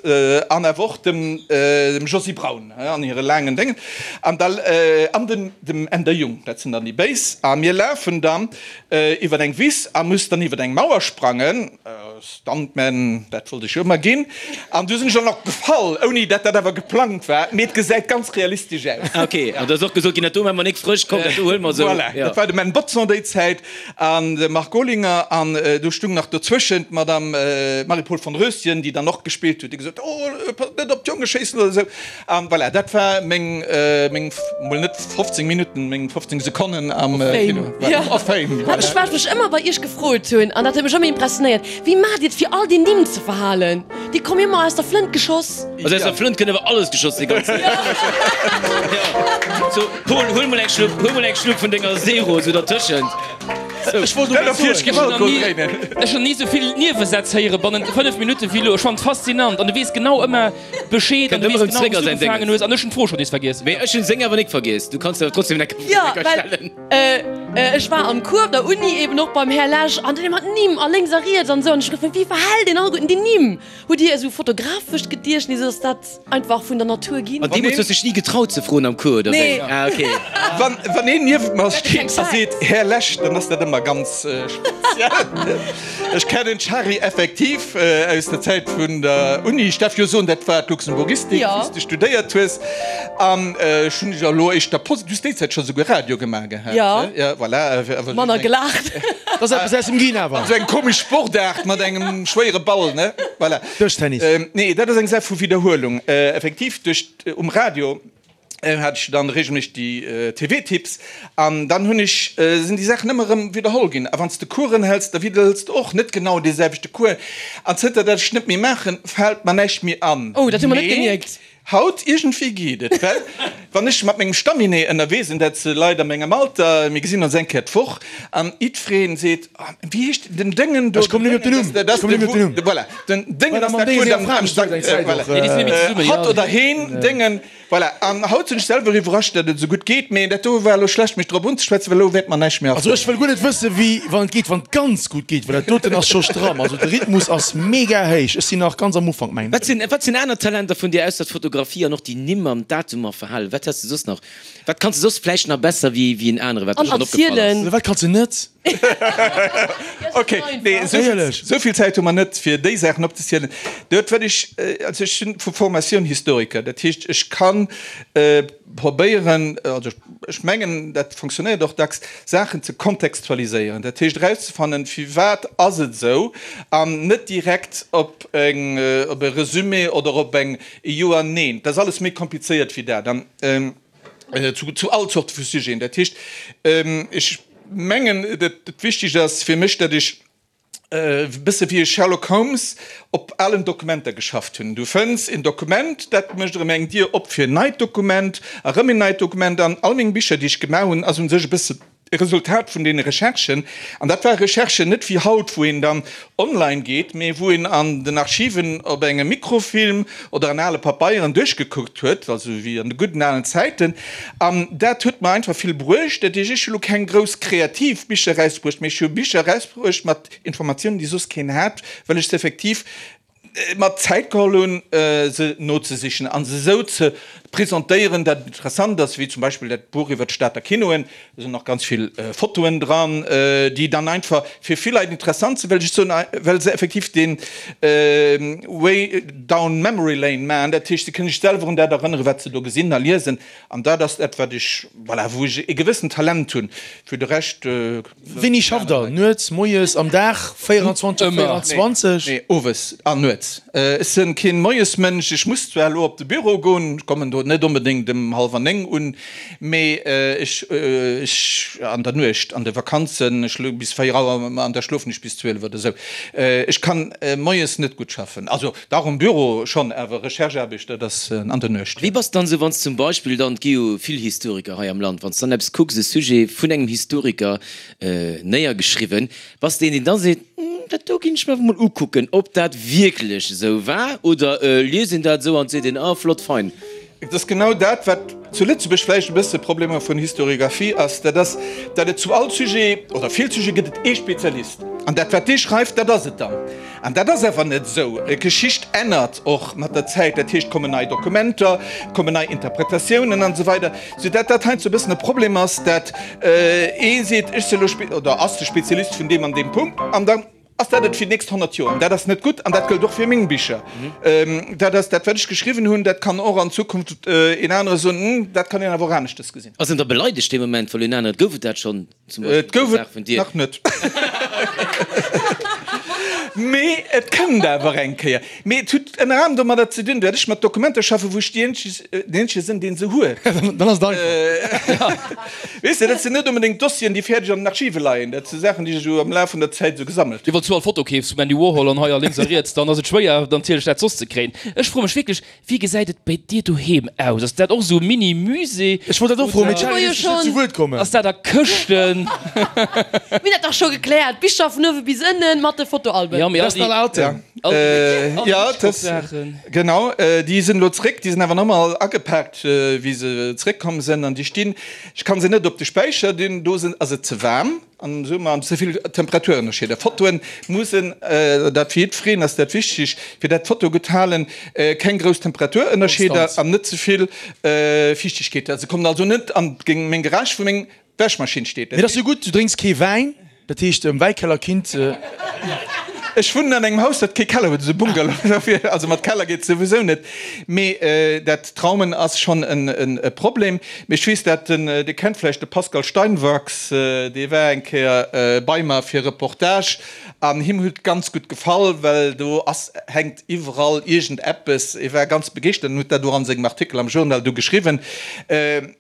an awer och dem Josy Braun an hire laangen Déngen, an da an dem Änder Jung, dat sinn dann déi Béis. A mir lafen dann iwwer eng Wiss a muss dann iwwer eng Mauer sprangen, Stuntman, dat wollt ech jo ëmmer ginn. An du sinn ech dann och gefall, ouni dat dat awer geplangt war, mee et gesäit ganz realistesch aus. Ok, an do ass och gesot ginn, dat do maache mer nik frësch, komm dat do huele mer esou. Voilà, dat war de Menn Bodson déi Zäit. An de Marc Olinger, an do stung nach dozwëschent d'Madame Marie-Paule von Röschen, déi dann och gespillt huet, déi gesot huet, Oh, passt net op d'Jonge schéissen oder esou. An voilà, dat war meng, meng, mol net 15 Minutten, meng 15 Sekonnen am Kino. Voilà, of Fame. Wat ech mech ëmmer bei Iech gefrot hunn, an dat huet mech ëmmer impressionéiert, Wéi maacht Dir et fir all déi Nimm ze verhalen? Déi komme jo ëmmer aus der Flënt geschoss. Also aus der Flënt kënnt awer alles geschoss, déi ganz Zäit. So. Paul, huel mol eng Schlupp, huel mol eng Schlupp vun denger Zero sou dertëschent. Sou. Ech wollt elo soen. Ech hunn nach ni, ech hunn ni sou vill Niewesätz héiere bannent 5 Minutte wéi elo. Ech fannen et faszinant an du weess genau ëmmer Bescheed an Kënnt du ëmmer weess erëm genau zréck wou a s du säin ugefaangen Déngens. hues an ech hunn d'Fro schonn nees vergiess. Mee ech hunn seng awer nik vergiess. Du kanns awer trotzdem eng Ja, Kéier well stellen. ech war am Cours op der Uni eben och beim Här Lesch an dann ëmmer d'Nimm a lénks a riets an esou an ech hu gefrot, wéi verhält een alleguerten déi Nimm? Hutt Dir esou fotografescht Gediechtnis oder ass dat einfach vun der Natur ginn? An deemools hues du dech ni getraut ze froen am Cours, oder wéi? Nee. Ah, okay. Wann, wann een niewent mer steet a seet Här Lesch, dann ass dat ëmmer ganz speziell. Ech kennen d'Shari effektiv aus der Zäit vun der Uni. Ech däerf jo soen, dat war d'Luxemburgistik, wou s de studéiert hues. An ech hunn dech elo éischter posi-, du hues déi Zäit scho souguer Radio gemaach gehat, Jo. Ja, voilà. Awer Manner gelaacht. Dat ass eppes aus dem Ginn awer. Esou eng komesch Sportaart mat engem schwéiere Ball, ne? Voilà. Dëschtennis. Nee, dat ass eng Saach vu Widderhuelung. Effektiv, duerch, um Radio hat ech dann regelméisseg déi TV-Tipps an dann hunn ech, sinn déi Saachen ëmmer erëm widderholl ginn. A wann s de Coursen häls, da widderhëls de och net genau dee selwechte Cours. An zënter dat ech net méi maachen, fält mer näischt méi an. Oh, dat hu mer net gemierkt. Haut iergendwéi geet et, well wann ech mat mengem Stamminee ënnerwee sinn, dat se Leit a mengem Alter, mir gesinn ons eng Kéier d'Woch, an jiddwereen seet, Oh, wéi heescht den Dëngen do? Ech kommen net méi op den Numm. Dat ass Ech kommen net méi op den Numm. Voilà, den Dëngen ass dat Wuert am Voilà, hatt oder heen, Dëngen, voilà. An haut sinn ech selwer iwwerrascht, datt et esou gutt geet, mee dat do war elo schlecht, mech drop unzeschwätzen, well elo wäert mer näischt méi Also afalen. ech wëll guer net wëssen, wéi wann et geet, wann et ganz gutt geet, well dat doten ass scho stramm. Also de Rhythmus ass mega héich. Ech sinn nach ganz am Ufank, mengen Wat ech. sinn, wat sinn aner Talenter vun dir ausser d'Fotografie an och déi Nimm an d'Datumer verhalen? Wat häss de soss nach? Wat kanns de soss vläicht nach besser wéi, wéi en anere, wat der An schonn opgefall ass? erzielen. Oder wat kanns de net? Ok, nee, esou vill, Éierlech. esou vill Zäit hu mer net, fir déi Saachen opzezielen. Dat wat ech, also ech sinn vu Formatioun Historiker, dat heescht ech kann probéieren, also ech mengen dat fonctionnéiert och dacks, Saachen ze kontextualiséieren, dat heescht erauszefannen, firwat ass et esou, an net direkt op eng, op e Resumé oder op eng e Joer, neen, dat ass alles méi komplizéiert wéi dat. An zu all Zorte vu Sujeten. Dat heescht, ech mengen, dat Wichtigst ass fir mech, datt ech e bësse wéi e Sherlock Holmes op alen Dokumenter geschafft hunn. Du fënns en Dokument, dat mécht erëm eng Dier op fir en neit Dokument, erëm en neit Dokument. An all meng Bicher, déi ech gemaach hunn, ass u sech e bësse e Resultat vun deene Recherchen, an dat ware Recherchen net wéi haut, wou een dann online geet, mee wou een an den Archiven op engem Mikrofilm oder an ale Papeieren duerchgekuckt huet, also wéi an de gudden alen Zäiten. An dat huet mer einfach vill bruecht. Dat heescht, ech hu lo keng grouss kreativ Bicher erausbruecht, mee ech hu Bicher erausbruecht mat Informatiounen, déi soss keen hat, well ech se effektiv mer d'Zäit geholl hunn, se nozesichen a se esou ze presentéieren, datt et interessant ass, wéi zum Beispill dat Buch iwwer d'Stater Kinoen. Do sinn och ganz vill Fotoen dran, déi dann einfach fir vill Leit interessant sinn, well ech soen, well se effektiv dee Way down memory lane maachen. Dat heescht, se kënne sech selwer un dat erënneren, wat se do gesinn a liesen. An dat ass dat, wat ech, voilà, wou ech e gewëssent Talent hunn. Fir de Rescht. Wéini schafft der? Nuets, moies, am Dag, 24 op 24? Nee, owes an nuets. Ech sinn keen Moiesmënsch. Ech muss zwar elo op de Büro goen, ech kommen do net onbedéngt ëm hallwer 9 un, mee ech, ech an der Nuecht, an de Vakanzen, ech bis 4 Auer an da schlofen ech bis 12 oder sou. Ech kann moies net gutt schaffen. Also dach um Büro schonn, awer Rechercheaarbecht, dat ass an der Nuecht. Wéi bass de dann esou, wann s zum Beispill dann, et gi jo vill Historiker hei am Land, wann s dann eppes kucks, e Sujet vun engem Historiker néiergeschriwwen, bass de een, deen da seet, dat do ginn ech mer awer mol ukucken, ob dat wierklech esou war, oder liest een dat esou an seet een, ah flott, fein. Et ass genau dat, wat. zu Lëtzebuerg vläicht e bësse Problemer vun Historiographie ass, dat ass, datt et zu all Sujet oder vill Sujete gëtt et ee Spezialist. An dat, wat dee schreift, dat ass et dann. An dat ass awer net esou. D'Geschicht ännert och mat der Zäit. Dat heescht, et kommen nei Dokumenter, et kommen nei Interpretatiounen an esou weider, soudatt dat heiansdo e bëssen e Problem ass, dat ee seet, ech si elo oder ass de Spezialist vun deem an deem Punkt an da ass dat et fir déi nächst 100 Joer. An dat ass net gutt an dat gëllt och fir meng Bicher. Dat ass dat, wat ech geschriwwen hunn, dat kann och an Zukunft een anere soen, Hm, dat kann een awer och aneschtes gesinn. Ass en da beleidegt dee Moment, well een anere, et gouf et dat schonn? Zum Et gouf et nach net. Mee et kënnt awer eng Kéier. Mee et huet ënner anerem domadder ze dinn, datt ech mat Dokumenter schaffen, wou ech déi eenzege sinn, dee se huet. Dann ass et einfach. Weess de, dat sinn net onbedéngt Dossieren, déi fäerdeg an den Archive leien. Dat si Saachen, déi ech esou am Laf vun der Zäit esou gesammelt hunn. Wann s du all Foto keefs vum Andy Warhol an hei a lénks a riets, dann ass et schwéier natierlech dat soss ze kréien. Ech froe mech wierklech, Wéi gesäit et béi dir doheem aus? Ass dat och esou e Mini-Musée? Ech wollt dat och froen, mee d'Shari léisst mech net zu Wuert kommen. Ass dat a Këschten? Mir hunn dat dach scho gekläert, Bicher vun uewe bis ënnen mat de Fotoalben. Jo, mee all Dat ass nach déi, al. all déi Ja, dat, Hitchcock-Saachen. genau, déi sinn elo zréck. Déi sinn awer nach emol agepaakt, wéi se zréckkomm sinn. An déi stinn, ech kann se net op de Späicher dinn, do sinn, ass et ze waarm. Am Summer an ze vill Temperaturënnerscheeder. Fotoen mussen, dat fir jiddwereen ass dat wichteg, fir dat d'Foto gutt halen, keng grouss Temperaturënnerscheeder an net ze vill Fiichtegkeet. Se kommen also net an meng Garage wou meng Wäschmaschinn steet. Mee dat ass jo gutt, du drénks kee Wäin, dat heescht am Wäikeller kinnt. Ech wunnen an engem Haus dat kee Keller huet, esou e Bungalow, dofir, also mat Keller geet souwisou net. Mee dat Traumen ass schonn e Problem. Mee ech weess dat den, Dir kennt vläicht de Pascal Steinwachs, dee war eng Kéier bei mer fir Reportage an him huet et ganz gutt gefall, well do ass, hänkt iwwerall iergend eppes. E war ganz begeeschtert an huet dat och an sengem Artikel am Journal du geschriwwen.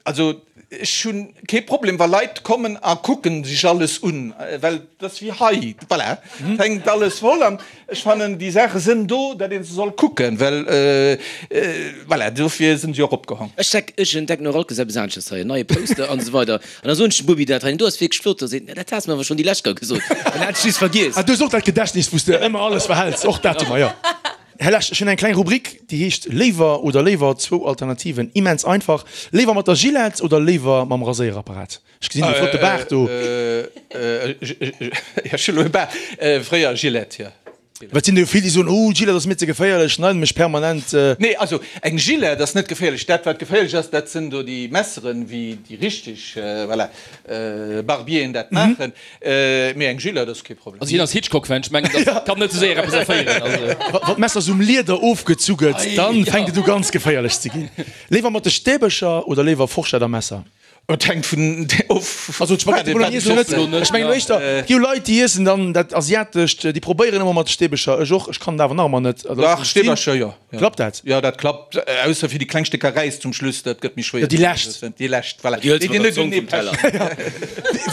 Also ech hu kee Problem, wa Leit kommen a kucken sech alles un, well et ass wéi hei, voilà, et hänkt alles voll an ech fannen, déi Saache sënn do, datt ee se soll kucken, well voilà, dofir sinn se och opgehong. Ech deck, ech entdecken och alt gees eppes aneschters hei, en neie Poster an esou weider an da soen ech dem Bubi dat hei, an do ass wierklech flott, da seet en, dat has mer awer schonn déi lescht Kéier gesot, an hat ech just vergiess. Ah, du hues och dat Gedächtnis, wou s de ëmmer alles behäls, och dat hu mer, jo. Här Lesch, ech hunn eng kleng Rubrik, déi heescht Léiwer oder léiwer, zwou Alternativen, immens einfach. Léiwer mat der Gillette oder léiwer mam Raséierapparat? Ech gesinn dee flotte Baart do. Ech hunn elo e Baart. Fréier Gillette, jo. Well et sinn jo vill, déi soen, oh d'Gillette ass mir ze geféierlech, ech schneiden mech permanent. Nee, also eng Gillette ass net geféierlech. Dat wat geféierlech ass, dat sinn do déi Messeren, wéi déi richteg, voilà, Barbieren dat maachen. Mee eng Gillette ass kee Problem. Also hien ass Hitchcock-Fan, ech mengen dat kann net ze séier eppes erféieren. Also. Wann d'Messer sou um Lieder ofgezu gëtt, dann fänkt et u ganz geféierlech ze ginn. Léiwer mat de Stäbercher oder léiwer Forschett a Messer? Et hänkt vun of. Also d'Spaghetti Bolognese elo net. Ech mengen elo éischter, et gi jo Leit déi iessen dann dat asiatescht, déi probéieren ëmmer mat de Stäbercher. Ech och, ech kann et awer nach ëmmer net. Dach, Stäbercher jo. Klappt dat? Jo, dat klappt, ausser fir déi kleng Stécker Räis zum Schluss, dat gëtt méi schwéier. Jo, déi lescht. Déi lescht, voilà. Déi hëls de mat der Zong vum Teller.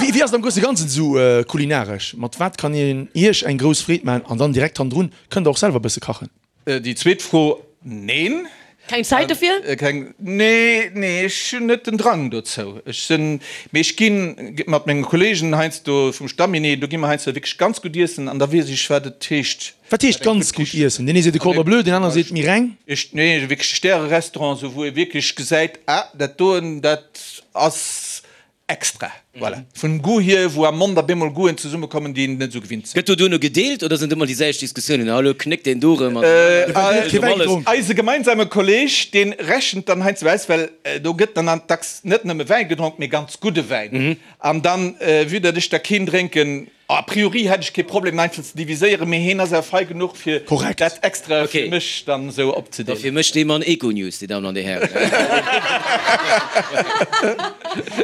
Wéi ass et am grousse Ganzen esou kulinaresch? Mat wat kann een Iech eng grouss Freed maachen? An dann direkt hannendrun, kënnt der och selwer e bësse kachen? Déi zweet Fro, Neen. Keng Zäit dofir? Keng, nee, nee, ech hunn net den Drang dozou. Ech sinn, mee ech ginn mat menge Kollegen heiansdo vum Stamminet, do gi mer heiansdo wierklech ganz gutt iessen an da weess ech, wat et heescht. Wat heescht ganz gutt iessen? Deen ee seet de Cordon bleu, deen anere seet méi reng. Ech, nee, wierklech Stärerestaurant, esou wou ee wierklech gesäit, ah, dat doen, dat ass extra. Voilà. Vum Goût hier, wou am Mond op eemol Goûten zesummekommen, déi een net esou gewinnt sinn. Gëtt do duerno gedeelt oder sinn et ëmmer déi selwecht Diskussiounen, ah, elo knéckt deen do erëm an deen aneren huet erëm alles. Eise gemeinsame Kolleg, dee rechent dann heiansdo aus, well do gëtt dann dacks net nëmme Wäin gedronk, mee ganz gudde Wäin. An dann, vue datt ech da keen drénken, A priori hätt ech kee Problem einfach ze diviséieren, mee heen ass awer fei genuch fir dat extra fir mech dann esou opzedeelen. Dofir mécht dee Mann Econews, déi Damen an déi Hären.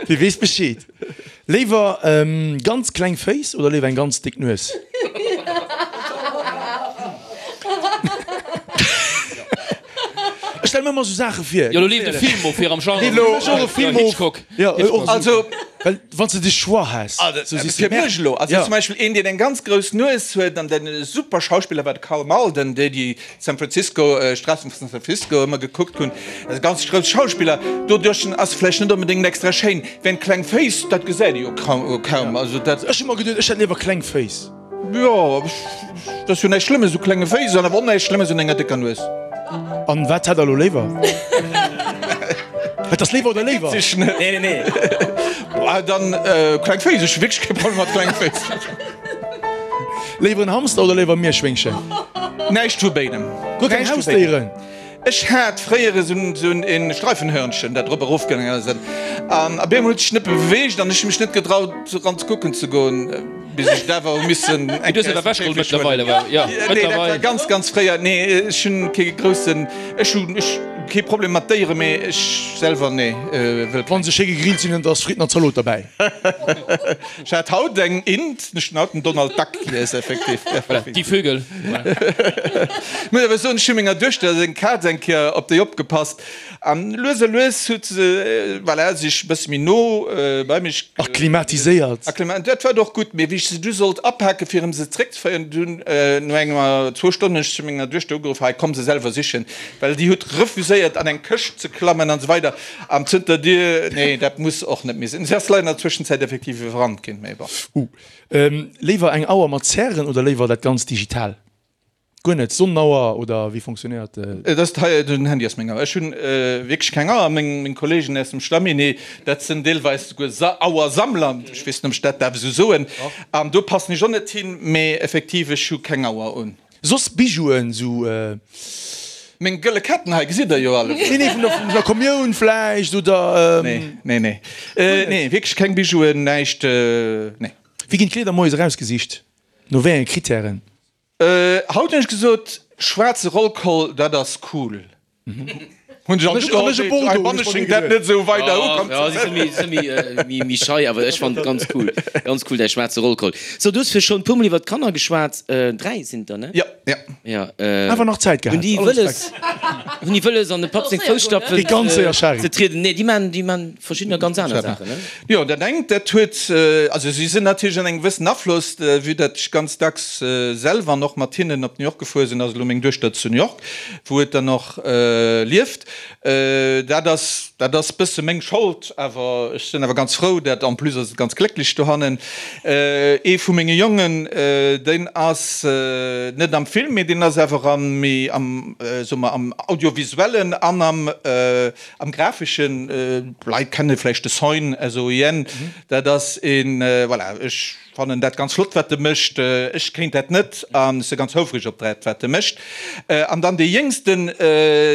Wie weess Bescheed. Léiwer ganz kleng Féiss oder léiwer eng ganz déck Nues? Ech stelle mir ëmmer esou Saache vir. Jo, lo leeft e Film of fir am Genre Hitchcock. Also, well wann s de de Choix häss, sou siss de, fir mech elo, also zum Beispill een, deen eng ganz grouss Nues huet an den e super Schauspiller war de Karl Malden, déi déi San Francisco, Straßen von San Francisco ëmmer gekuckt hunn, e ganz grouss Schauspiller, doduerch ass e vläicht net onbedéngt extra schéin, während kleng Féiss, dat gesäit ee jo kaum, also dat. Ech hu mer geduet, ech hätt léiwer kleng Féiss. Jo, dat ass jo näischt Schlëmmes u klenge Féiss an awer och näischt Schlëmmes un enger décker Nues. An wat hätt der elo léiwer? Et ass léiwer oder léiwer? Sech net. Nee, nee, nee. Ah, dann kleng Féiss. Ech hu wierklech kee Problem mat klenge Féiss. Léiwer en Hamster oder léiwer e Mierschwéngchen? Näischt vu béidem. Guer keng Hausdéieren? Ech hat fréier esou en Streifenhörnchen, dat drop erofgaangen ass, an op eemol huet sech net beweegt an ech hu mech net getraut eran ze kucken ze goen, bis ech et awer hu missen eng Du hues et ewechgeholl mëttlerweil, awer jo, Nee, dat war ganz, ganz fréier. Nee, ech hunn kee groussen, ech hunn ech kee Problem mat Déieren, mee ech selwer, nee, wëll Wann keng. se schéi gegrillt sinn, dann ass Fritten an Zalot derbäi. Ech hat haut eng Int, ech hunn haut den Donald Duck giess, effektiv. Voilà, die Vögel. Ech muss awer soen, ech hu menger Duechter seng Kaz eng Kéier op déi opgepasst an lues a lues huet se, voilà, sech e bësse méi no bei mech. Akklimatiséiert. Akklimat, dat war och gutt, mee wéi ech se du sollt apake fir erëm se zréckzeféieren, dunn no enger, zwou Stonnen hunn ech zu menger Duechter ugeruff, hei komm se selwer sichen, well déi huet refuséiert an eng Këscht ze klammen an esou weider. An zënter dir, nee, dat muss och net méi sinn. Se ass leider an der Zwëschenzäit effektiv iwwerrannt ginn, mee bon. Uh. Léiwer eng Auer mat Zären oder léiwer dat Ganzt digital? Guer net, Sonnenauer oder wéi fonctionnéiert? Et ass hei, den Handy ass meng Auer. Ech hunn wierklech keng Auer. Meng Kollegen aus dem Stamminet, dat sinn deelweis souguer Auersammler, ech weess net, ob ech dat däerf esou soen, an do passen ech och net hin, mee effektiv, ech hu keng Auer un. Soss Bijouen sou. Meng gëlle Ketten hei gesitt der jo alleguer. Nee, nee, vun der Kommioun vläicht oder. Nee, nee, nee. Nee, wierklech keng Bijouen, näischt, nee. Wéi ginn d'Kleeder moies erausgesicht? No wéi enge Krittären? Haut hunn ech gesot, schwaarze Rollkoll, dat ass cool. Hunn ech an ech Bordeaux, ech schéngt dat net esou weider ukomm ze sinn. Si si méi schei, awer ech fannen et ganz cool, ganz cool däi schwaarze Rollkoll. So, du hues fir schonn e puermol iwwer d'Kanner geschwat, 3 sinn et der, ne? Jo, jo. Jo. Awer nach Zäit gehat, Hunn déi alles wëlles, Respekt. hunn déi wëlles an dem Papp seng Fousstapfen Geet ganz séier, Shari. ze trieden? Nee, déi maan, déi maan verschiddener ganz aner Saachen, ne? Jo, dat engt, dat huet, also si sinn natierlech an engem gewëssen Afloss, vue dat ech ganz dacks selwer an och mat hinnen op New York gefuer sinn, ass elo meng Duechter zu New York, wou et dann och lieft. Dat ass, dat ass bësse meng Schold, awer ech sinn awer ganz frou, dat en plus ass et ganz glécklech dohannen. Ee vu menge Jongen, deen ass net am Film, mee deen ass awer am méi am, soe mer, am Audiovisuellen an am, am Grafeschen. D'Leit kenne vläicht de Soin, S-O-I-N, dat ass een, voilà, ech. Fannen dat ganz flott wat de mécht. Ech kéint dat net an ech si ganz houfreg op dat wat de mécht. An dann dee jéngsten,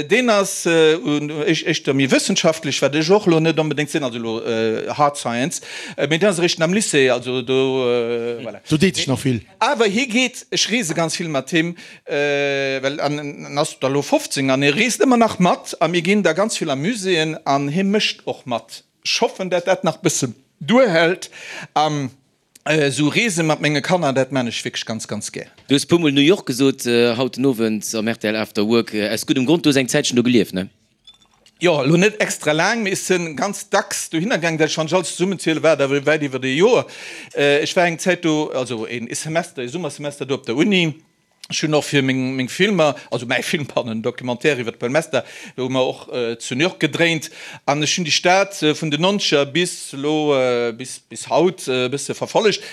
deen ass éischter méi wëssenschaftlech, wat ech och elo net onbedéngt sinn, also elo hard science, mee deen ass eréischt am Lycée, also do voilà. Do deet sech nach vill. Awer hie geet, ech reese ganz vill mat him, well en ass da lo 15 an hie reest ëmmer nach mat a mir ginn da ganz vill a Muséeën an hie mécht och mat. Ech hoffen dat dat nach bësse duerhält an esou Reese mat menge Kanner, dat maan ech wierklech ganz ganz gär. Du hues puermol New York gesot haut den Owend am rtl After Work, aus guddem Grond, du hues eng Zäitchen do gelieft, ne? Jo, elo net extra laang, mee ech sinn ganz dacks dohinner gaangen, dat ech wann ech alles zesummenzielen, war et awer wäit iwwert ee Joer. Ech war eng Zäit do, also een Semester, ee Summersemester do op der Uni. Ech hunn och fir meng Filmer, also mäi Film, pardon, den Documentaire iwwer d'Pearl Mesta, do hu mer och zu New York gedréint an ech hunn déi Stad vun den Nonzeger bis elo, bis haut e bësse verfollegt,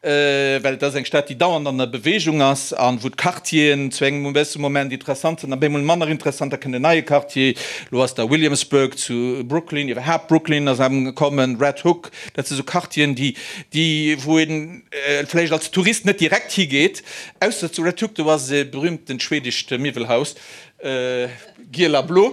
well et ass eng Stad, déi dauernd an der Beweegung ass an wou d'Quartieren zu engem gewësse Moment interessant sinn, op eemol manner interessant, da kënnt en neie Quartier, elo ass da Williamsburg zu Brooklyn, iwwerhaapt Brooklyn ass am Kommen, Red Hook, dat si sou Quartieren, déi, déi wou een vläicht als Tourist net direkt higeet. Ausser zu Red Hook, do ass e berühmtent schwedescht Miwwelhaus, giel a blo.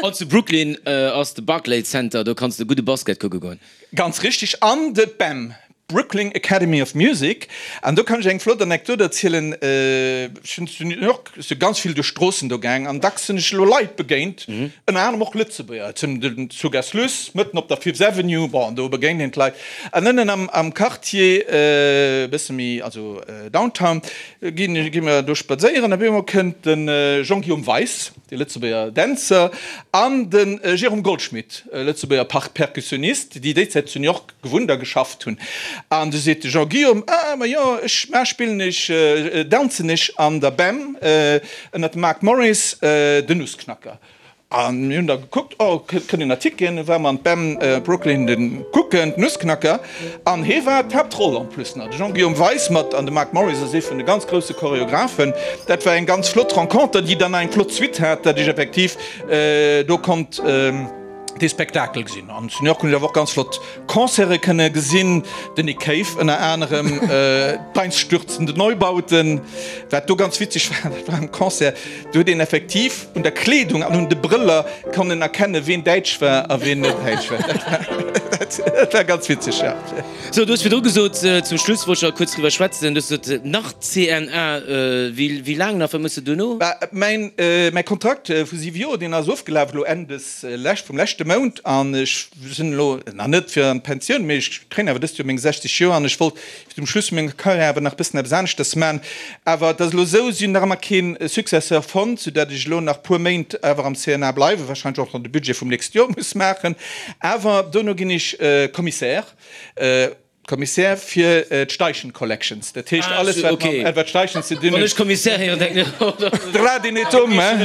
An zu Brooklyn ass de Barclays Center, do kanns de gudde Basket kucke goen. Ganz richtig, an de BAM, Brooklyn Academy of Music. An do kann ech eng flott Anekdot erzielen, Ech hunn zu New York si ganz vill duerch d'Stroossen do gaang an dacks hunn ech elo Leit begéint, ënner anerem och Lëtzebuerger. Et sinn den Zuch S. Luss, mëtten op der Fifth Avenue, bon, do begéint een d'Leit. An ënnen am Quartier, e bësse méi, also Downtown, gi mer do spadséieren. Op eemol kënnt de Jean-Guillaume Weis, de Lëtzebuerger Dänzer, an de Jérôme Goldschmidt, Lëtzebuerger Perkussionist, déi déi Zäit zu New York gewunnt a geschafft hunn. An du seet de Jean-Guillaume, Ah, ma jo, ech, mar spillen ech, danzen ech an der Bam ënnert dem Mark Morris, den Nussknacker. A mir hunn da gekuckt, oh, kënnt een Artikel, du ware mer an d'Bem Brooklyn de kucken, d'Nussknacker, an hee war d'Haaptroll en plus nach, de Jean-Guillaume Weis mat, an de Mark Morris ass ee vun de ganz grousse Choreographen. Dat war eng ganz flott Renconter, déi dann nach eng flott Suite hat, datt ech effektiv do konnt dee Spektakel gesinn. An zu New York hunn ech awer och ganz flott Concerte kënne gesinn, den Nick Cave ënner anerem, d'Einstürzende Neubauten. Wat do ganz witzeg war, dat war am Concert, do huet een effektiv un der Kleedung an un de Brëller konnen erkennen, ween däitsch war a ween net däitsch war. Dat war ganz witzeg, jo. Sou, du hues virdru gesot, zum Schluss wollt ech nach kuerz driwwer schwätzen, du hues gesot, nach CNA, wéi laang nach, wat méchs de duerno? Mäin Kontrakt vu siwe Joer, deen ass ofgelaf elo Enn des lescht, vum leschte Mount an ech sinn elo nach net fir an d'Pensioun, mee ech kréien awer dëst Joer meng 60 Joer an ech wollt fir zum Schluss vu menger Karriär awer nach bëssen eppes aneschters man. Awer et ass elo esou, si hunn nach ëmmer kee Successeur fonnt, soudatt ech elo nach puer Méint awer am CNA bleiwen, wahrscheinlech och nach de Budget vum nächste Joer muss maachen. Awer dono ginn ech Commissaire, Commissaire fir d'Steichen Collections, dat heescht alles wat mam Edward Steichen ze dinn huet. Wann ech Commissaire héieren, denken ech, oh, da. Dra deen net um, hein?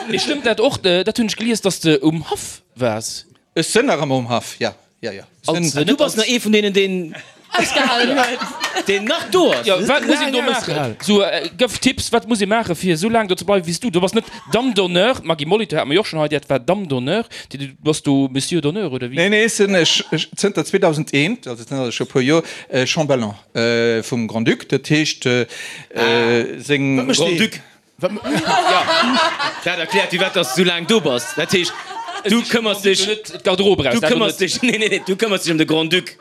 Mee stëmmt dat och, dat hunn ech gelies, datt s de um Haff waars? Ech sinn nach ëmmer um Haff, ja. Ja, ja. Als, du bass nach ee vun deenen, deen. Ausgehalen huet. Deen nach do ass. Jo, wat muss een do maachen? Sou, gëff Tipps, wat muss ee maachen, fir esou laang do ze bleiwen wéi s du? Du bass net Dame d'honneur, d'Maggy Molitor hate mer jo och schonn hei, dat war Dame d'honneur. Du bass do Monsieur d'honneur, oder wéi? Nee, nee, ech sinn zënter 2001, also et sinn also scho e puer Joer, Chambellan vum Grand-Duc. Dat heescht, seng. Wat mécht deen? Grand-Duc. Dat erkläert firwat dass du sou laang do bass. Dat heescht, du këmmers dech, du këmmers dech, nee, nee, du këmmers dech ëm de Grand-Duc.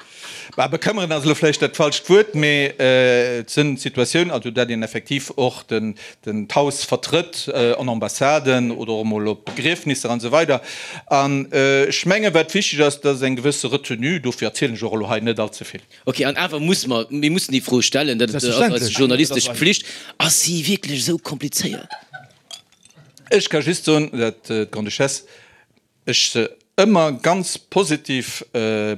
Bah, bekëmmeren ass elo vläicht dat falscht Wuert, mee et sënn Situatiounen, also dat een effektiv och den, den d'Haus vertrëtt an Ambassaden oder och emol op Begriefnisser an esou weider. An ech mengen, wat wichteg ass, dat ass eng gewësse Retenue. Dofir erzielen ech och elo hei net allze vill. Ok, an awer muss mer, mir mussen déi Fro stellen, dat ass eis journalistesch Pflicht, Ass si wierklech esou komplizéiert? Ech ka just soen, datt d'Grande-Duchesse, ech se ëmmer ganz positiv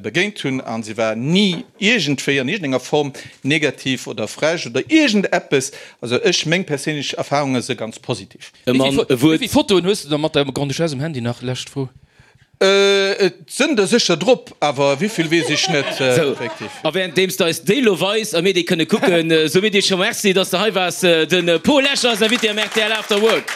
begéint hunn a si war ni iergendwéi an iergendenger Form negativ oder frech oder iergendeppes. Also ech, meng perséinlech Erfahrunge si ganz positiv. E Mann, e Wuert. Wéi vill Fotoen hues de da mat der Grande-Duchesse um Handy nach? Lescht Fro. Et sënn der sécher drop, awer wivill weess ech net effektiv. A währenddeems de eis déi lo weis a mir déi kënne kucken, soe mir dir scho Merci, dass de hei waars. De Paul Lesch eisen Invité am rtl After Work.